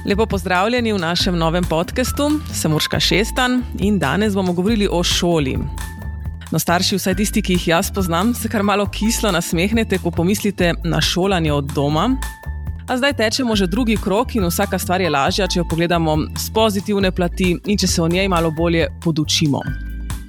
Lepo pozdravljeni v našem novem podcastu. Sem Urška Šestan in danes bomo govorili o šoli. No, starši, vsaj tisti, ki jih jaz poznam, se kar malo kislo nasmehnete, ko pomislite na šolanje od doma. A zdaj tečemo že drugi krog in vsaka stvar je lažja, če jo pogledamo s pozitivne plati in če se o njej malo bolje podučimo.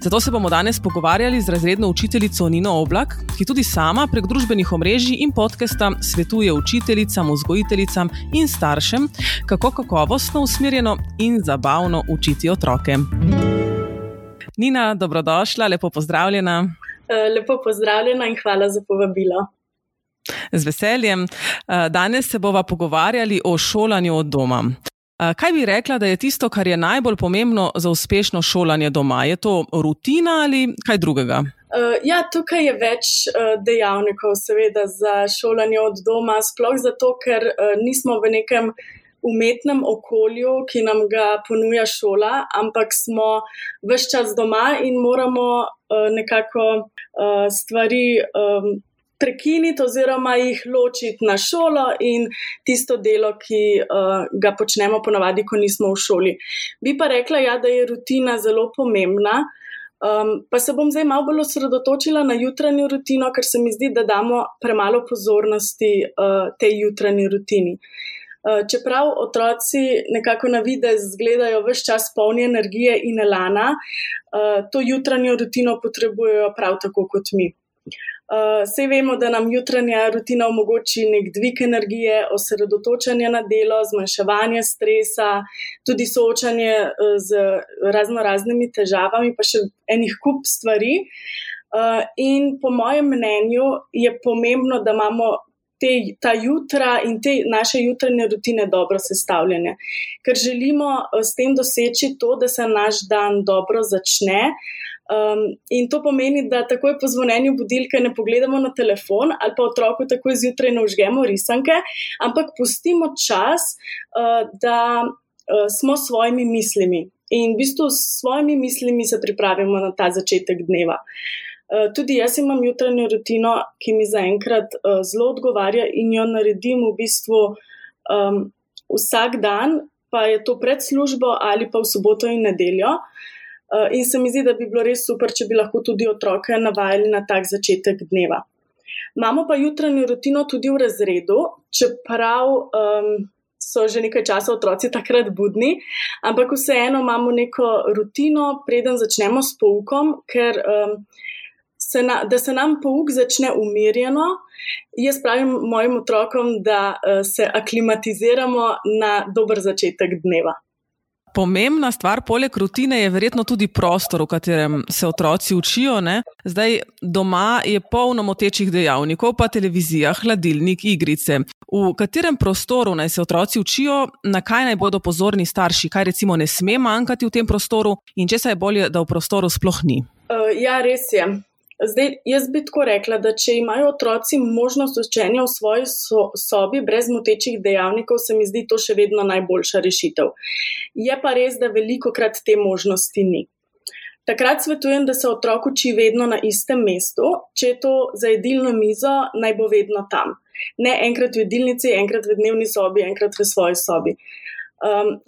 Zato se bomo danes pogovarjali z razredno učiteljico Nino Oblak, ki tudi sama prek družbenih omrežij in podcasta svetuje učiteljicam, vzgojiteljicam in staršem, kako kakovostno, usmerjeno in zabavno učiti otroke. Nina, dobrodošla, lepo pozdravljena. Lepo pozdravljena in hvala za povabilo. Z veseljem. Danes se bova pogovarjali o šolanju od doma. Kaj bi rekla, da je tisto, kar je najbolj pomembno za uspešno šolanje doma? Je to rutina ali kaj drugega? Tukaj je več dejavnikov seveda za šolanje od doma, sploh zato, ker nismo v nekem umetnem okolju, ki nam ga ponuja šola, ampak smo ves čas doma in moramo nekako stvari prekiniti oziroma jih ločiti na šolo in tisto delo, ki ga počnemo ponavadi, ko nismo v šoli. Bi pa rekla, da je rutina zelo pomembna, pa se bom zdaj malo bolj osredotočila na jutranjo rutino, ker se mi zdi, da damo premalo pozornosti tej jutranji rutini. Čeprav otroci nekako na videz izgledajo ves čas polni energije in elana, to jutranjo rutino potrebujejo prav tako kot mi. Saj vemo, da nam jutranja rutina omogoči nek dvig energije, osredotočanje na delo, zmanjševanje stresa, tudi soočanje z raznoraznimi težavami, pa še enih kup stvari. In po mojem mnenju je pomembno, da imamo ta jutra in te naše jutranje rutine dobro sestavljene, ker želimo s tem doseči to, da se naš dan dobro začne. In to pomeni, da takoj po zvonjenju budilke ne pogledamo na telefon ali pa otroku takoj zjutraj ne vžgemo risanke, ampak pustimo čas, da smo s svojimi mislimi in v bistvu s svojimi mislimi se pripravimo na ta začetek dneva. Tudi jaz imam jutranjo rutino, ki mi zaenkrat zelo odgovarja in jo naredim v bistvu vsak dan, pa je to pred službo ali pa v soboto in nedeljo. In se mi zdi, da bi bilo res super, če bi lahko tudi otroke navajali na tak začetek dneva. Imamo pa jutranjo rutino tudi v razredu, čeprav so že nekaj časa otroci takrat budni, ampak vseeno imamo neko rutino, preden začnemo s poukom, ker da se nam pouk začne umirjeno. Jaz pravim mojim otrokom, da se aklimatiziramo na dober začetek dneva. Pomembna stvar poleg rutine je verjetno tudi prostor, v katerem se otroci učijo, ne? Zdaj, doma je polno motečih dejavnikov, pa televizija, hladilnik, igrice. V katerem prostoru naj se otroci učijo, na kaj naj bodo pozorni starši, kaj recimo ne sme manjkati v tem prostoru in česa je bolje, da v prostoru sploh ni? Res je. Zdaj, jaz bi tako rekla, da če imajo otroci možnost učenja v svoji sobi brez motečih dejavnikov, se mi zdi to še vedno najboljša rešitev. Je pa res, da velikokrat te možnosti ni. Takrat svetujem, da se otrok uči vedno na istem mestu, če je to za jedilno mizo, naj bo vedno tam. Ne enkrat v jedilnici, enkrat v dnevni sobi, enkrat v svoji sobi.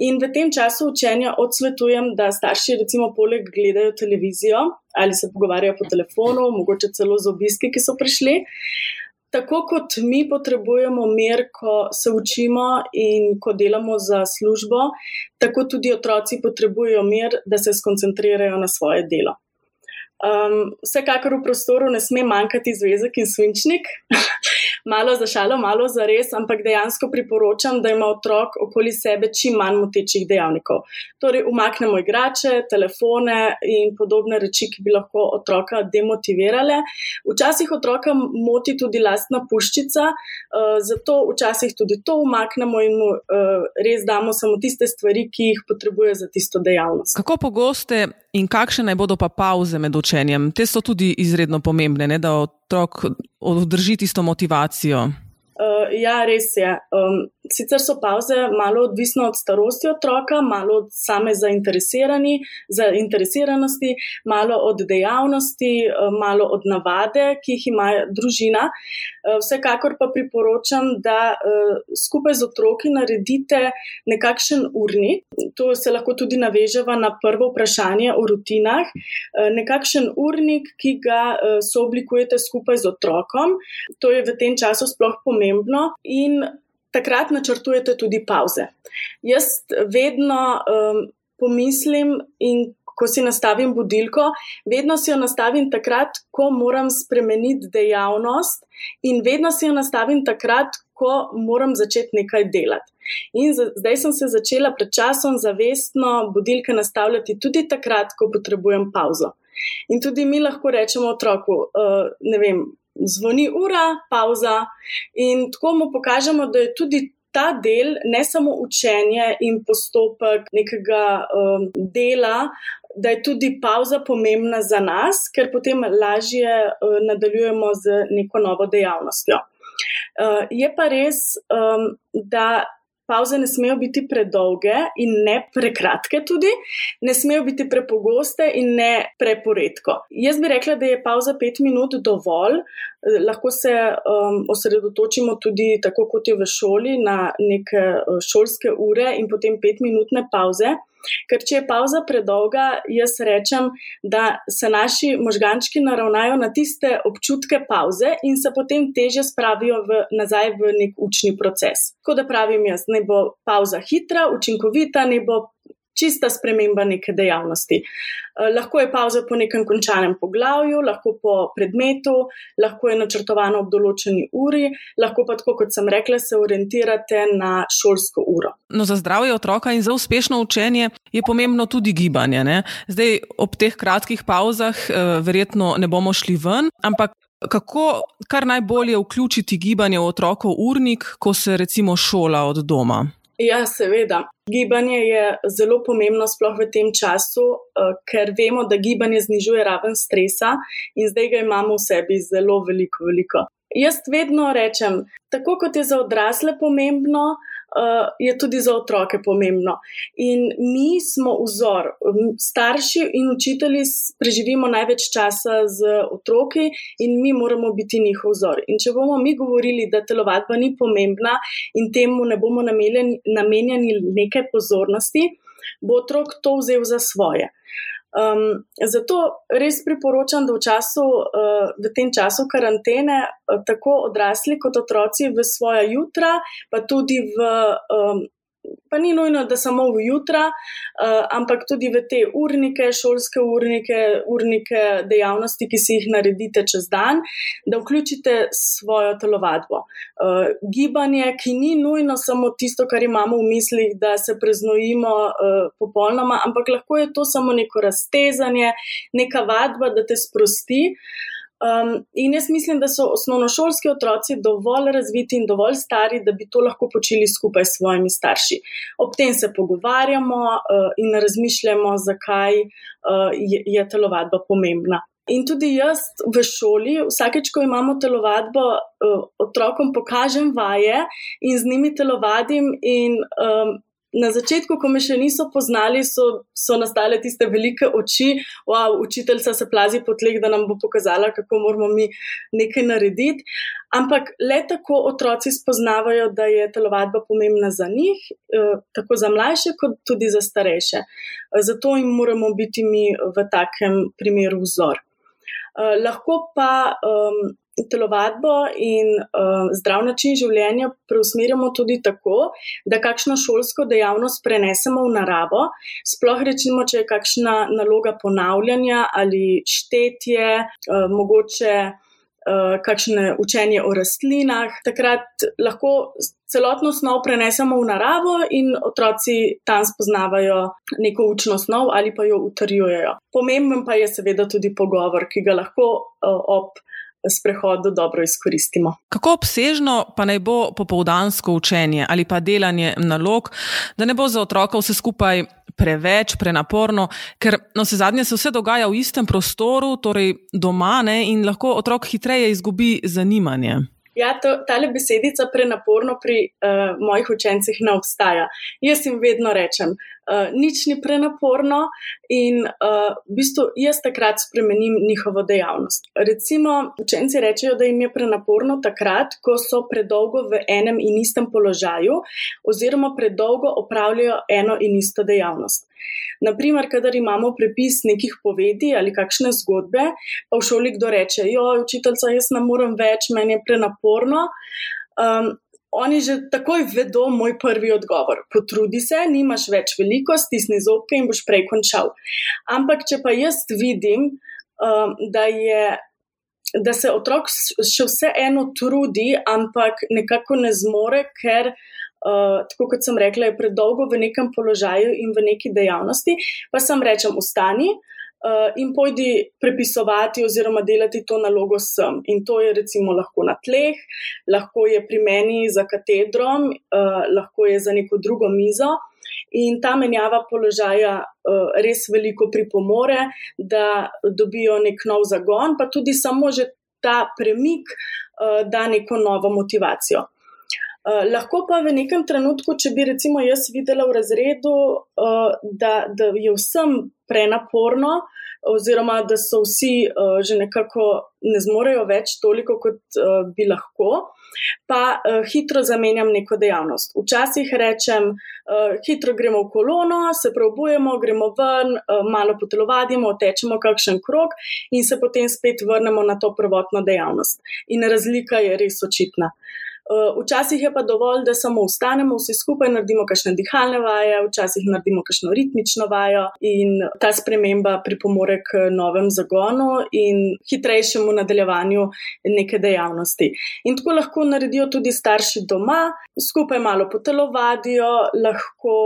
In v tem času učenja odsvetujem, da starši recimo poleg gledajo televizijo ali se pogovarjajo po telefonu, mogoče celo z obiski, ki so prišli. Tako kot mi potrebujemo mir, ko se učimo in ko delamo za službo, tako tudi otroci potrebujejo mir, da se skoncentrirajo na svoje delo. Vsekakor v prostoru ne sme manjkati zvezek in svinčnik, malo za šalo, malo za res, ampak dejansko priporočam, da ima otrok okoli sebe čim manj motečih dejavnikov. Torej, umaknemo igrače, telefone in podobne reči, ki bi lahko otroka demotivirale. Včasih otroka moti tudi lastna puščica, zato včasih tudi to umaknemo in mu res damo samo tiste stvari, ki jih potrebuje za tisto dejavnost. Kako pogoste in kakšne naj bodo pa pauze med učenjem? Te so tudi izredno pomembne, ne, da otrok održi tisto motivacijo. Ja, res je. Sicer so pavze malo odvisne od starosti otroka, malo od same zainteresiranosti, malo od dejavnosti, malo od navade, ki jih ima družina. Vsekakor pa priporočam, da skupaj z otroki naredite nekakšen urnik. To se lahko tudi naveževa na prvo vprašanje o rutinah. Nekakšen urnik, ki ga sooblikujete skupaj z otrokom. To je v tem času sploh pomembno in takrat načrtujete tudi pavze. Jaz vedno pomislim in ko si nastavim budilko, vedno si jo nastavim takrat, ko moram spremeniti dejavnost in vedno si jo nastavim takrat, ko moram začeti nekaj delati. In zdaj sem se začela pred časom zavestno budilke nastavljati tudi takrat, ko potrebujem pavzo. In tudi mi lahko rečemo otroku, zvoni ura, pavza, in tako mu pokažemo, da je tudi ta del, ne samo učenje in postopek nekega dela, da je tudi pavza pomembna za nas, ker potem lažje nadaljujemo z neko novo dejavnostjo. Je pa res, da pavze ne smejo biti predolge in ne prekratke tudi, ne smejo biti prepogoste in ne preporedko. Jaz bi rekla, da je pavza 5 minut dovolj, lahko se osredotočimo tudi tako kot je v šoli na neke šolske ure in potem 5-minutne pavze. Ker če je pavza predolga, jaz rečem, da se naši možgančki naravnajo na tiste občutke pavze in se potem težje spravijo nazaj v nek učni proces. Tako da pravim jaz, naj bo pavza hitra, učinkovita, naj bo čista sprememba neke dejavnosti. Lahko je pavza po nekem končanem poglavju, lahko po predmetu, lahko je načrtovano ob določeni uri, lahko pa tako, kot sem rekla, se orientirate na šolsko uro. No, za zdravje otroka in za uspešno učenje je pomembno tudi gibanje, ne? Zdaj, ob teh kratkih pavzah verjetno ne bomo šli ven, ampak kako kar najbolje vključiti gibanje v otrokov urnik, ko se recimo šola od doma? Ja, seveda. Gibanje je zelo pomembno sploh v tem času, ker vemo, da gibanje znižuje raven stresa in zdaj ga imamo v sebi zelo veliko. Jaz vedno rečem, tako kot je za odrasle pomembno, je tudi za otroke pomembno. In mi smo vzor. Starši in učitelji preživimo največ časa z otroki in mi moramo biti njihov vzor. In če bomo mi govorili, da telovadba ni pomembna in temu ne bomo namenjali neke pozornosti, bo otrok to vzel za svoje. Zato res priporočam, da v tem času karantene tako odrasli kot otroci v svoja jutra, pa tudi pa ni nujno, da samo v jutra, ampak tudi v te urnike, šolske urnike dejavnosti, ki si jih naredite čez dan, da vključite svojo telovadbo. Gibanje, ki ni nujno samo tisto, kar imamo v mislih, da se preznojimo popolnoma, ampak lahko je to samo neko raztezanje, neka vadba, da te sprosti. In jaz mislim, da so osnovnošolski otroci dovolj razviti in dovolj stari, da bi to lahko počeli skupaj s svojimi starši. Ob tem se pogovarjamo in razmišljamo, zakaj je telovadba pomembna. In tudi jaz v šoli, vsakeč, ko imamo telovadbo, otrokom pokažem vaje in z njimi telovadim in na začetku, ko me še niso poznali, so nastale tiste velike oči, učiteljica se plazi po tleh, da nam bo pokazala, kako moramo mi nekaj narediti. Ampak le tako otroci spoznavajo, da je telovadba pomembna za njih, tako za mlajše, kot tudi za starejše. Zato jim moramo biti mi v takem primeru vzor. Lahko pa telovadbo in zdrav način življenja preusmerjamo tudi tako, da kakšno šolsko dejavnost prenesemo v naravo, sploh recimo, če je kakšna naloga ponavljanja ali štetje, mogoče kakšne učenje o rastlinah. Takrat lahko celotno snov prenesemo v naravo in otroci tam spoznavajo neko učno snov ali pa jo utrjujejo. Pomemben pa je seveda tudi pogovor, ki ga lahko ob sprehodu dobro izkoristimo. Kako obsežno pa naj bo popoldansko učenje ali pa delanje nalog, da ne bo za otroka vse skupaj preveč, prenaporno, ker navsezadnje se vse dogaja v istem prostoru, torej doma, ne, in lahko otrok hitreje izgubi zanimanje. Ja, tale besedica prenaporno pri mojih učencih ne obstaja. Jaz jim vedno rečem, nič ni prenaporno in v bistvu jaz takrat spremenim njihovo dejavnost. Recimo, učenci rečejo, da jim je prenaporno takrat, ko so predolgo v enem in istem položaju oziroma predolgo opravljajo eno in isto dejavnost. Naprimer, kadar imamo prepis nekih povedi ali kakšne zgodbe, pa v šoli kdo reče, učiteljica, jaz ne morem več, meni je prenaporno. Oni že takoj vedo moj prvi odgovor. Potrudi se, nimaš več veliko, stisni zobke in boš prej končal. Ampak, če pa jaz vidim, da se otrok še vseeno trudi, ampak nekako ne zmore, ker tako kot sem rekla, je predolgo v nekem položaju in v neki dejavnosti, pa sem rečem, vstani in pojdi prepisovati oziroma delati to nalogo sem. In to je recimo lahko na tleh, lahko je pri meni za katedrom, lahko je za neko drugo mizo in ta menjava položaja res veliko pripomore, da dobijo nek nov zagon, pa tudi samo že ta premik da neko novo motivacijo. Lahko pa v nekem trenutku, če bi recimo jaz videla v razredu, da je vsem prenaporno oziroma da so vsi že nekako ne zmorejo več toliko, kot bi lahko, pa hitro zamenjam neko dejavnost. Včasih rečem, hitro gremo v kolono, se preobujemo, gremo ven, malo potelovadimo, tečemo kakšen krog in se potem spet vrnemo na to prvotno dejavnost. In razlika je res očitna. Včasih je pa dovolj, da samo vstanemo, vsi skupaj naredimo kakšne dihalne vaje, včasih naredimo kakšno ritmično vajo in ta sprememba pripomore k novem zagonu in hitrejšemu nadaljevanju neke dejavnosti. In tako lahko naredijo tudi starši doma, skupaj malo potelovadijo, lahko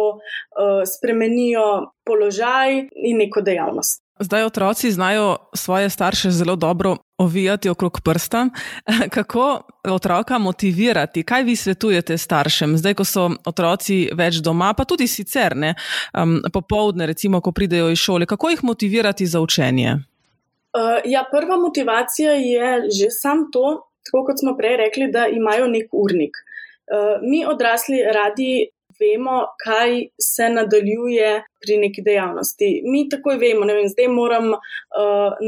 spremenijo položaj in neko dejavnost. Zdaj otroci znajo svoje starše zelo dobro ovijati okrog prsta. Kako otroka motivirati? Kaj vi svetujete staršem? Zdaj, ko so otroci več doma, pa tudi sicer, popoldne, recimo, ko pridejo iz šole, kako jih motivirati za učenje? Prva motivacija je že sam to, tako kot smo prej rekli, da imajo nek urnik. Mi odrasli radi vemo, kaj se nadaljuje pri neki dejavnosti. Mi takoj vemo, zdaj moram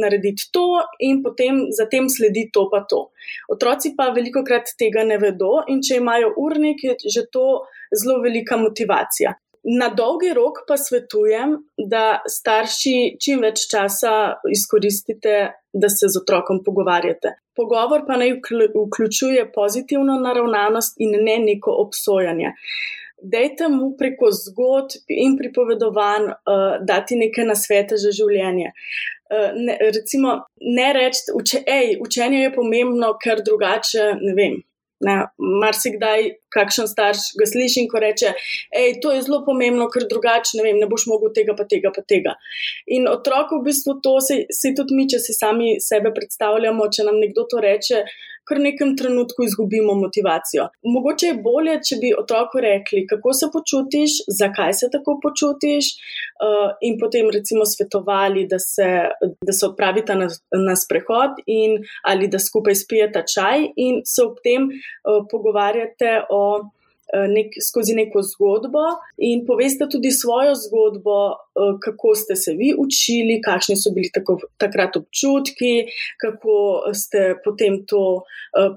narediti to in potem zatem sledi to pa to. Otroci pa velikokrat tega ne vedo in če imajo urnik, je že to zelo velika motivacija. Na dolgi rok pa svetujem, da starši čim več časa izkoristite, da se z otrokom pogovarjate. Pogovor pa naj vključuje pozitivno naravnanost in ne neko obsojanje. Dajte mu preko zgodb in pripovedovanj dati neke nasvete za življenje. Recimo, ne reči, učenje je pomembno, ker drugače, marsikdaj kakšen starš ga slišim, ko reče, to je zelo pomembno, ker drugače, ne boš mogel tega pa tega pa tega. In otrok v bistvu to, se tudi mi, če si sami sebe predstavljamo, če nam nekdo to reče, kar v nekem trenutku izgubimo motivacijo. Mogoče je bolje, če bi otroku rekli, kako se počutiš, zakaj se tako počutiš in potem recimo svetovali, da se odpravita na sprehod in ali da skupaj spijeta čaj in se ob tem pogovarjate skozi neko zgodbo in poveste tudi svojo zgodbo, kako ste se vi učili, kakšni so bili takrat občutki, kako ste potem to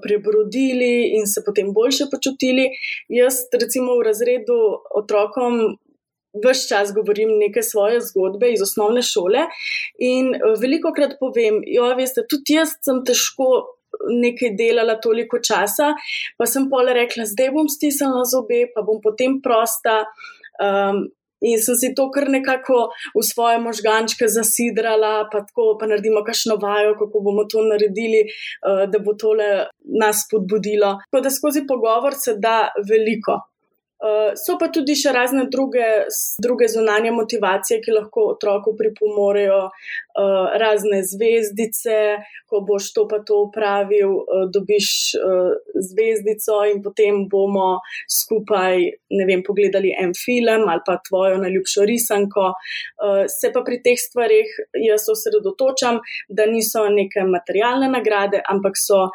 prebrodili in se potem boljše počutili. Jaz recimo v razredu otrokom ves čas govorim neke svoje zgodbe iz osnovne šole in velikokrat povem, veste, tudi jaz sem težko nekaj delala toliko časa, pa sem potem rekla, zdaj bom stisnila zobe, pa bom potem prosta in sem si to kar nekako v svoje možgančke zasidrala, pa naredimo kakšno vajo, kako bomo to naredili, da bo tole nas spodbudilo. Tako da skozi pogovor se da veliko. So pa tudi še razne druge zunanje motivacije, ki lahko otroku pripomorejo, razne zvezdice, ko boš to pa to opravil, dobiš zvezdico in potem bomo skupaj, ne vem, pogledali en film ali pa tvojo najljubšo risanko. Se pa pri teh stvarih jaz osredotočam, da niso neke materialne nagrade, ampak so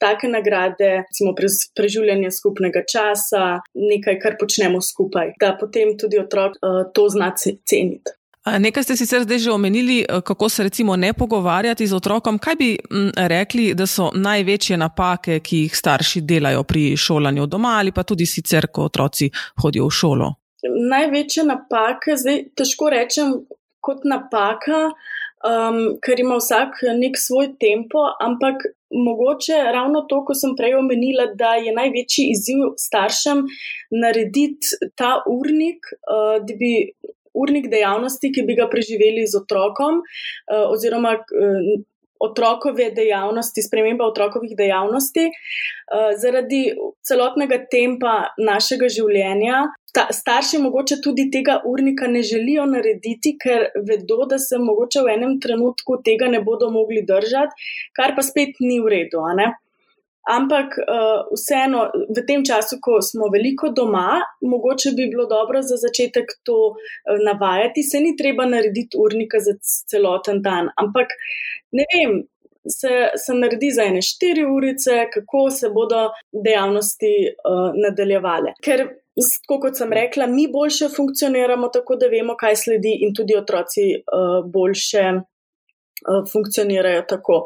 take nagrade, recimo preživljanje skupnega časa, nekaj, kar počnemo skupaj, da potem tudi otrok to zna ceniti. Nekaj ste sicer zdaj že omenili, kako se recimo ne pogovarjati z otrokom. Kaj bi rekli, da so največje napake, ki jih starši delajo pri šolanju doma ali pa tudi sicer, ko otroci hodijo v šolo? Največje napake, zdaj težko rečem kot napaka, ker ima vsak nek svoj tempo, ampak mogoče ravno to, ko sem prej omenila, da je največji izziv staršem narediti ta urnik, da bi urnik dejavnosti, ki bi ga preživeli z otrokom, oziroma otrokove dejavnosti, sprememba otrokovih dejavnosti, zaradi celotnega tempa našega življenja. Starši mogoče tudi tega urnika ne želijo narediti, ker vedo, da se mogoče v enem trenutku tega ne bodo mogli držati, kar pa spet ni v redu, a ne? Ampak vseeno, v tem času, ko smo veliko doma, mogoče bi bilo dobro za začetek to navajati. Se ni treba narediti urnika za celoten dan, ampak ne vem, se naredi za ene 4 urice, kako se bodo dejavnosti nadaljevale. Ker, kot sem rekla, mi boljše funkcioniramo tako, da vemo, kaj sledi, in tudi otroci boljše funkcionirajo tako.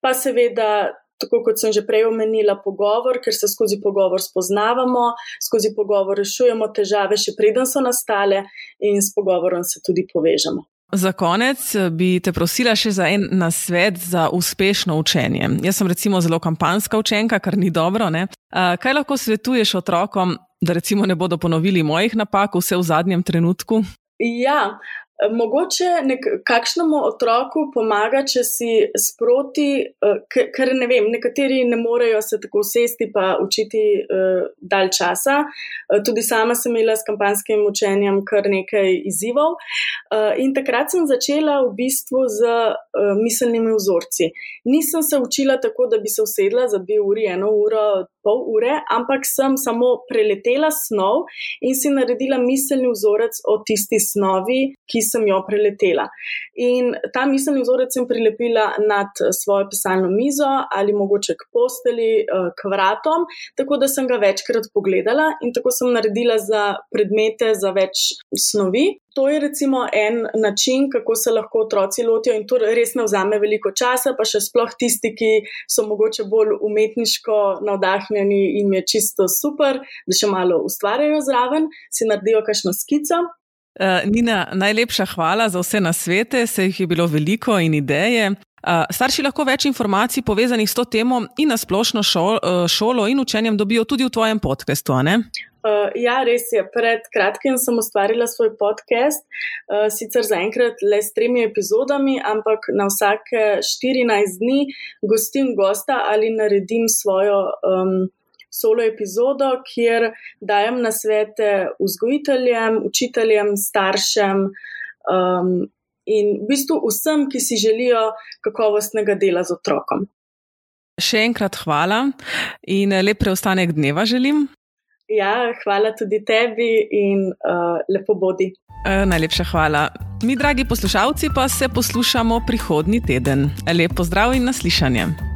Pa seveda, tako kot sem že prej omenila, pogovor, ker se skozi pogovor spoznavamo, skozi pogovor rešujemo težave, še preden so nastale, in s pogovorom se tudi povežemo. Za konec bi te prosila še za en nasvet za uspešno učenje. Jaz sem recimo zelo kampanjska učenka, kar ni dobro, ne? Kaj lahko svetuješ otrokom, da recimo ne bodo ponovili mojih napak vse v zadnjem trenutku? Ja, mogoče kakšnemu otroku pomaga, če si sproti, ker ne vem, nekateri ne morejo se tako sesti pa učiti dalj časa. Tudi sama sem imela s kampanjskim učenjem kar nekaj izzivov. In takrat sem začela v bistvu z miselnimi vzorci. Nisem se učila tako, da bi se usedla za 2 uri, 1 uro, pol ure, ampak sem samo preletela snov in si naredila miselni vzorec o tisti snovi, ki sem jo preletela. In ta miselni vzorec sem prilepila nad svojo pisalno mizo ali mogoče k posteli, k vratom, tako da sem ga večkrat pogledala, in tako sem naredila za predmete za več snovi. To je recimo en način, kako se lahko otroci lotijo, in to res ne vzame veliko časa, pa še sploh tisti, ki so mogoče bolj umetniško navdahnjeni, in je čisto super, da še malo ustvarjajo zraven, si naredijo kakšno skico. Nina, najlepša hvala za vse nasvete, se jih je bilo veliko in ideje. Starši lahko več informacij povezanih s to temo in na splošno šolo in učenjem dobijo tudi v tvojem podcastu, a ne? Ja, res je. Pred kratkim sem ustvarila svoj podcast, sicer zaenkrat le s 3 epizodami, ampak na vsake 14 dni gostim gosta ali naredim svojo solo epizodo, kjer dajem nasvete vzgojiteljem, učiteljem, staršem in v bistvu vsem, ki si želijo kakovostnega dela z otrokom. Še enkrat hvala in lep preostanek dneva želim. Ja, hvala tudi tebi in lepo bodi. Najlepša hvala. Mi, dragi poslušalci, pa se poslušamo prihodnji teden. Lep pozdrav in naslišanje.